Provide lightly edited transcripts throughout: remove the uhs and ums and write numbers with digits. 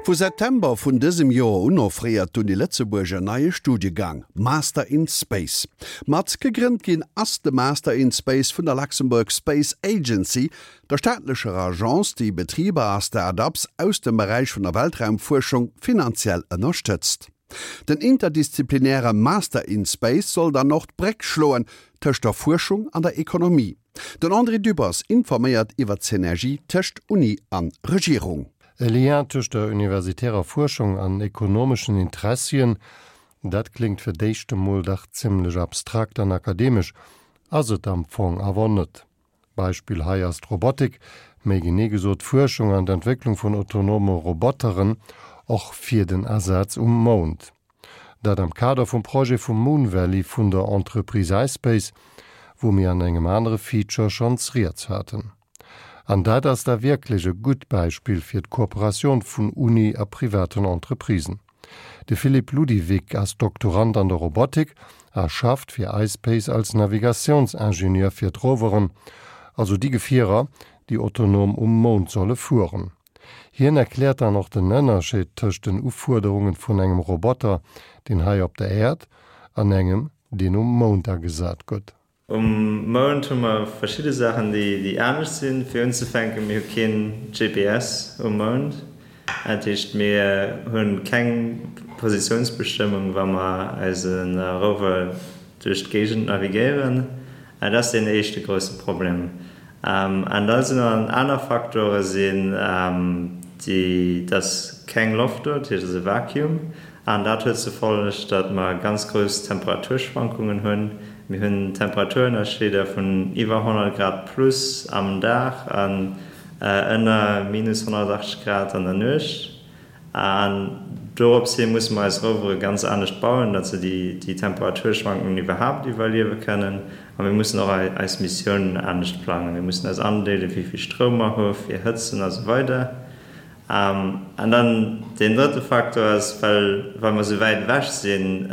Vu September vun dësem Joer un offréiert d'Uni Lëtzebuerg en neie Studiegang, Master in Space. Mat gegrënnt ginn ass de Master in Space vun der Luxembourg Space Agency, der staatlecher Agence, déi Betriber a Start-ups aus dem Beräich vun der Weltraumfuerschung finanziell ënnerstëtzt. Den interdisziplinäre Master in Space soll dann och d'Bréck schloen tëscht der Fuerschung an der Ekonomie. Den André Dübbers informéiert iwwer d'Synergie tëscht Uni an Regierung. E Lien tëscht der universitärer Fuerschung an ekonomeschen Interessien, dat kléngt fir d'éischt emol dach zimmlech abstrakt an akademesch, ass et am Fong awer net. Beispill hei ass d'Robotik, méi genee gesot d'Fuerschung an d'Entwécklung vun autonome Roboteren, och fir den Asaz um Mound. Dat am Kader vum Projet vum Moon Valley vun der Entreprise iSpace, wou mir an engem anere Feature schonns rieds haten. An dat ass da wierklech e gutt Beispill fir d'Kooperatioun vun Uni a privaten Entreprisen. De Philippe Ludivig ass Doktorand an der Robotik a schafft fir iSpace als Navigatiounsingenieur fir d'Roveren, also déi Gefierer, déi autonom um Mound solle fueren. Hien erkläert dann och den Ënnerscheed tëscht den Ufuerderungen vun engem Roboter, deen hei op der Äerd, an engem, deen um Mound agesat gëtt. Um Mound hu mer verschidde Saachen, déi anescht sinn. Fir unzefänken, mir hu keen GPS um Mound. Dat heescht, mir hu keng Positiounsbestëmmung, wa mer eise Rover duerch d'Géigend navigéieren. Dat ass deen éischte grousse Problem. An da sinn nach aner Faktore sinn déi, dass keng Loft do, dat heescht et ass e Vakuum. An dat huet zur Folleg, datt mer ganz grouss Temperaturschwankungen hunn. Mir hunn Temperaturënnerscheeder vun iwwer 100 Grad plus am Dag an ënner minus 180 Grad an der Nuecht. An dorops hi musse mer eis Rovere ganz anescht bauen, datt se déi Temperaturschwankungen iwwerhaapt iwwerliewe kënnen. A mir mussen och eis Missiounen anescht plangen. Mir mussen eis andeelen, wéi vill Stroum mer hu fir hëtzen a sou weider. An dann deen drëtte Faktor ass, well well mer esou wäit ewech sinn,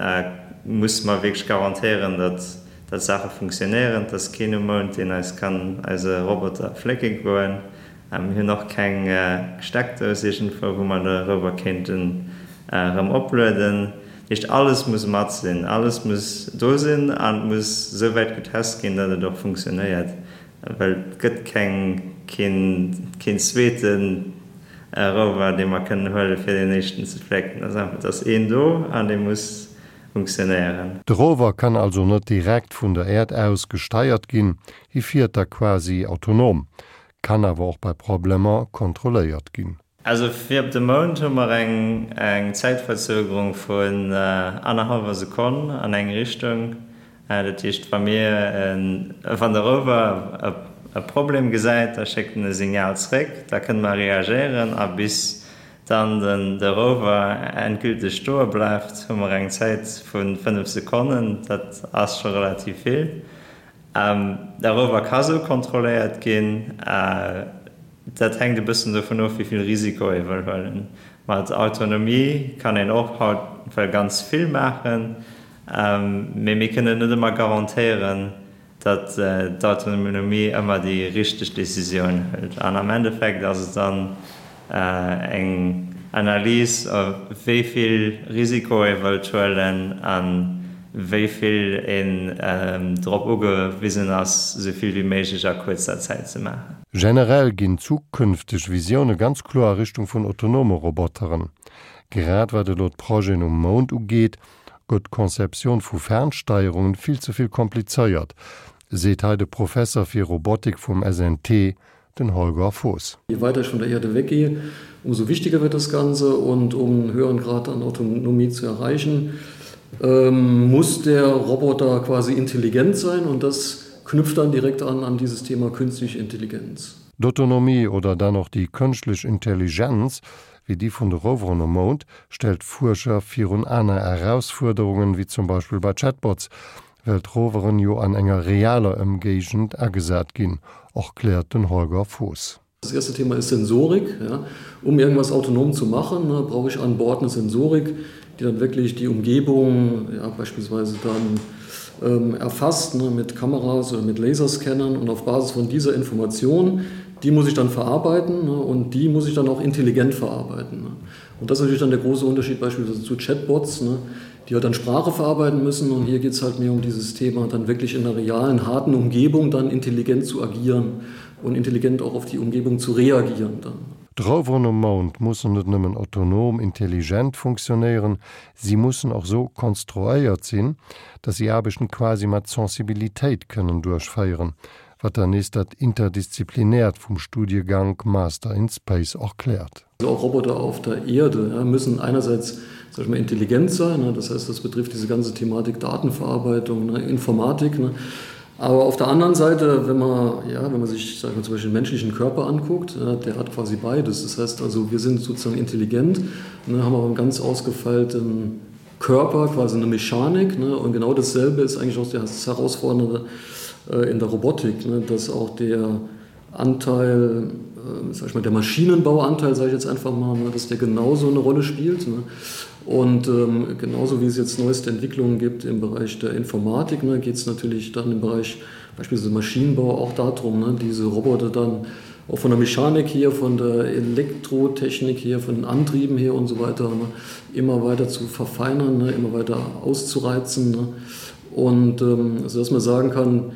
musse mer wierklech garantéieren, datt datt d'Saache funktionéieren. Et ass keen um Mound, deen eis kann eise Roboter flécke goen. Mir hunn och keng Steckdous iergendwou, wou mer de Rover kéinten erëm oplueden. Dat heescht, alles muss mat sinn, alles muss do sinn an et muss esou wäit getest ginn, datt et och funktionéiert. Well et gëtt keng, keen, keen zweete Rover, dee mer kënnen huelen, fir deen éischten ze flécken. Et ass einfach, et ass een do an dee muss funktionéieren. De Rover kann also net direkt vun der Äerd aus gesteiert ginn, hie fiert da quasi autonom, kann awer och bei Problemer kontrolléiert ginn. Also fir op de Mound hu mer eng Zäitverzögerung vun annerhallwer Sekonn an eng Richtung. Dat heescht, wa mir, wann de Rover e Problem gesäit, da schéckt en e Signal zréck, da kënne mer reagéieren a bis dann de Rover endgülteg stoe bleift, hu mer eng Zäit vu 5 Sekonnen. Dat ass scho relativ vill. De Rover ka sou kontrolléiert ginn. Dat hänkt e bëssen dovun of, wéi vill Risiko ee wëll huelen. Mat Autonomie kann een och haut well ganz vill maachen, mee mir kënnen net ëmmer garantéieren, datt d'Autonomie ëmmer déi richteg Decisioun hëlt. An am Endeffekt ass et dann eng Analys, wéi vill Risiko ee wëllt huelen a wéi vill een drop ugewisen ass, esou vill wéi méiglech a kuerzer Zäit ze maachen. Generell ginn zukünfteg Visioune ganz kloer a Richtung vun autonome Roboteren. Grad wat elo d'Projeten um Mound ugeet, gëtt d'Conceptioun vu Fernsteierungen vill ze vill komplizéiert, seet hei de Professer fir Robotik vum SNT, den Holger Voß. Je weiter ich von der Erde weggehe, umso wichtiger wird das Ganze und um einen höheren Grad an Autonomie zu erreichen, ähm, muss der Roboter quasi intelligent sein und das knüpft dann direkt an an dieses Thema künstliche Intelligenz. D'Autonomie oder dann och déi kënschtlech Intelligenz, wéi déi vun de Roveren um Mound, stellt d'Fuerscher virun aner Erausfuerderungen, wéi zum Beispill bei Chatbots, well d'Roveren jo an enger realer Ëmgéigend agesat ginn, erkläert den Holger Voß. Das erste Thema ist Sensorik. Ja. Um irgendwas autonom zu machen, ne, brauche ich an Bord eine Sensorik, die dann wirklich die Umgebung ja, beispielsweise dann ähm, erfasst ne, mit Kameras oder mit Laserscannern und auf Basis von dieser Information, die muss ich dann verarbeiten ne, und die muss ich dann auch intelligent verarbeiten. Ne. Und das ist natürlich dann der große Unterschied beispielsweise zu Chatbots, ne, die halt dann Sprache verarbeiten müssen. Und hier geht es halt mehr um dieses Thema, dann wirklich in einer realen, harten Umgebung dann intelligent zu agieren und intelligent auch auf die Umgebung zu reagieren dann. D'Roveren um Mound mussen net nëmmen autonom, intelligent funktionéieren, si mussen och sou konstruéiert sinn, datt si Aarbechten quasi mat Sensibilitéit kënnen duerchféieren, wat dann nees dat Interdisziplinäert vum Studiegank Master in Space erkläert. Also auch Roboter auf der Erde ja, müssen einerseits sag ich mal, intelligent sein, ne? das heißt, das betrifft diese ganze Thematik Datenverarbeitung, ne? Informatik. Ne? Aber auf der anderen Seite, wenn man, ja, wenn man sich sag ich mal, zum Beispiel den menschlichen Körper anguckt, ja, der hat quasi beides. Das heißt also, wir sind sozusagen intelligent, ne, haben aber einen ganz ausgefeilten Körper, quasi eine Mechanik. Ne? Und genau dasselbe ist eigentlich auch das Herausfordernde äh, in der Robotik, ne? dass auch der Anteil, äh, sag ich mal, der Maschinenbauanteil, sage ich jetzt einfach mal, ne? dass der genauso eine Rolle spielt. Ne? Und ähm, genauso wie es jetzt neueste Entwicklungen gibt im Bereich der Informatik, ne, geht es natürlich dann im Bereich beispielsweise Maschinenbau auch darum, ne, diese Roboter dann auch von der Mechanik hier, von der Elektrotechnik hier, von den Antrieben her und so weiter ne, immer weiter zu verfeinern, ne, immer weiter auszureizen. Ne. Und ähm, so dass man sagen kann,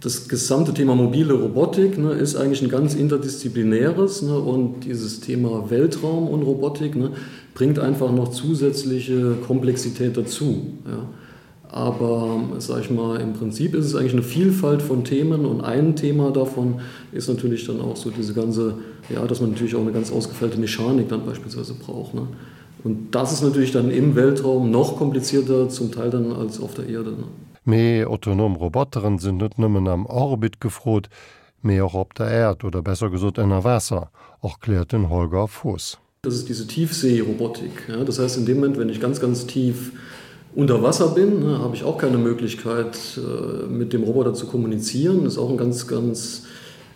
das gesamte Thema mobile Robotik ne, ist eigentlich ein ganz interdisziplinäres ne, und dieses Thema Weltraum und Robotik ne, bringt einfach noch zusätzliche Komplexität dazu. Ja. Aber sag ich mal, im Prinzip ist es eigentlich eine Vielfalt von Themen und ein Thema davon ist natürlich dann auch so diese ganze, ja, dass man natürlich auch eine ganz ausgefeilte Mechanik dann beispielsweise braucht. Ne? Und das ist natürlich dann im Weltraum noch komplizierter zum Teil dann als auf der Erde. Ne? Mee autonom Roboteren sinn net nëmmen am Orbit gefrot, mee och op der Äerd, oder besser gesot ënner Waasser, erkläert den Holger Voß. Das ist diese Tiefseerobotik. Ja, das heißt, in dem Moment, wenn ich ganz, ganz tief unter Wasser bin, ne, habe ich auch keine Möglichkeit, äh, mit dem Roboter zu kommunizieren. Das ist auch ein ganz, ganz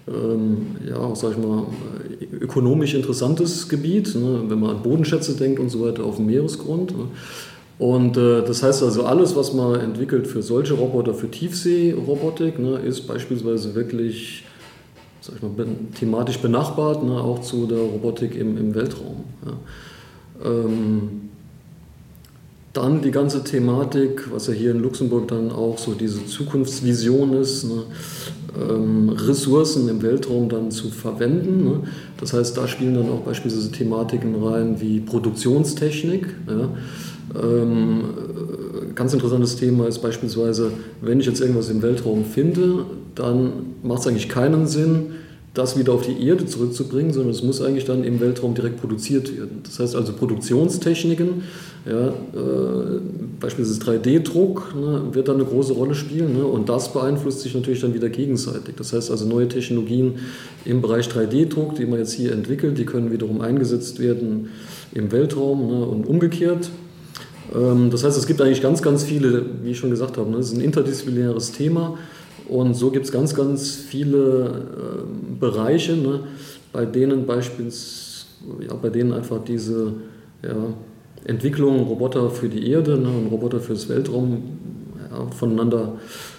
ähm, ja, sag ich mal, ökonomisch interessantes Gebiet, ne, wenn man an Bodenschätze denkt und so weiter auf dem Meeresgrund. Ne. Und äh, das heißt also, alles, was man entwickelt für solche Roboter, für Tiefseerobotik, ne, ist beispielsweise wirklich sag ich mal, thematisch benachbart, ne, auch zu der Robotik im, im Weltraum. Ja. Ähm, dann die ganze Thematik, was ja hier in Luxemburg dann auch so diese Zukunftsvision ist, ne, ähm, Ressourcen im Weltraum dann zu verwenden. Ne. Das heißt, da spielen dann auch beispielsweise Thematiken rein wie Produktionstechnik. Ja. Ähm, ganz interessantes Thema ist beispielsweise, wenn ich jetzt irgendwas im Weltraum finde, dann macht es eigentlich keinen Sinn, das wieder auf die Erde zurückzubringen, sondern es muss eigentlich dann im Weltraum direkt produziert werden. Das heißt also Produktionstechniken, ja, äh, beispielsweise 3D-Druck ne, wird dann eine große Rolle spielen ne, und das beeinflusst sich natürlich dann wieder gegenseitig. Das heißt also neue Technologien im Bereich 3D-Druck, die man jetzt hier entwickelt, die können wiederum eingesetzt werden im Weltraum ne, und umgekehrt. Ähm, das heißt, es gibt eigentlich ganz, ganz viele, wie ich schon gesagt habe, ne, es ist ein interdisziplinäres Thema. Und so gibt es ganz, ganz viele äh, Bereiche, ne, bei denen beispielsweise ja, bei denen einfach diese ja, Entwicklung Roboter für die Erde ne, und Roboter fürs Weltraum ja, voneinander,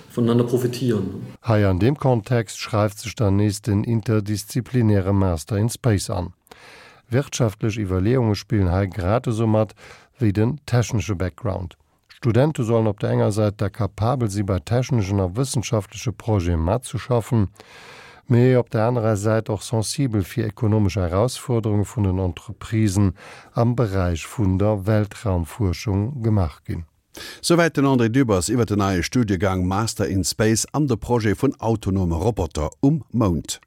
voneinander profitieren. Hei an deem Kontext schreift sech dann nees den interdisziplinäre Master in Space an. Wirtschaftlech Iwwerleeunge spillen hei grad esou mat wéi den technesche Background. Studente sollen op der enger Säit da kapabel si bei techneschen a wëssenschaftleche Projete matzeschaffen, mee op der anerer Säit och sensibel fir ekonomesch Erausfuerderunge vun den Entreprisen am Beräich vun der Weltraumfuerschung gemaach ginn. Souwäit den André Dübbers iwwer den neie Studiegang Master in Space an de Projet vun autonome Roboter um Mound.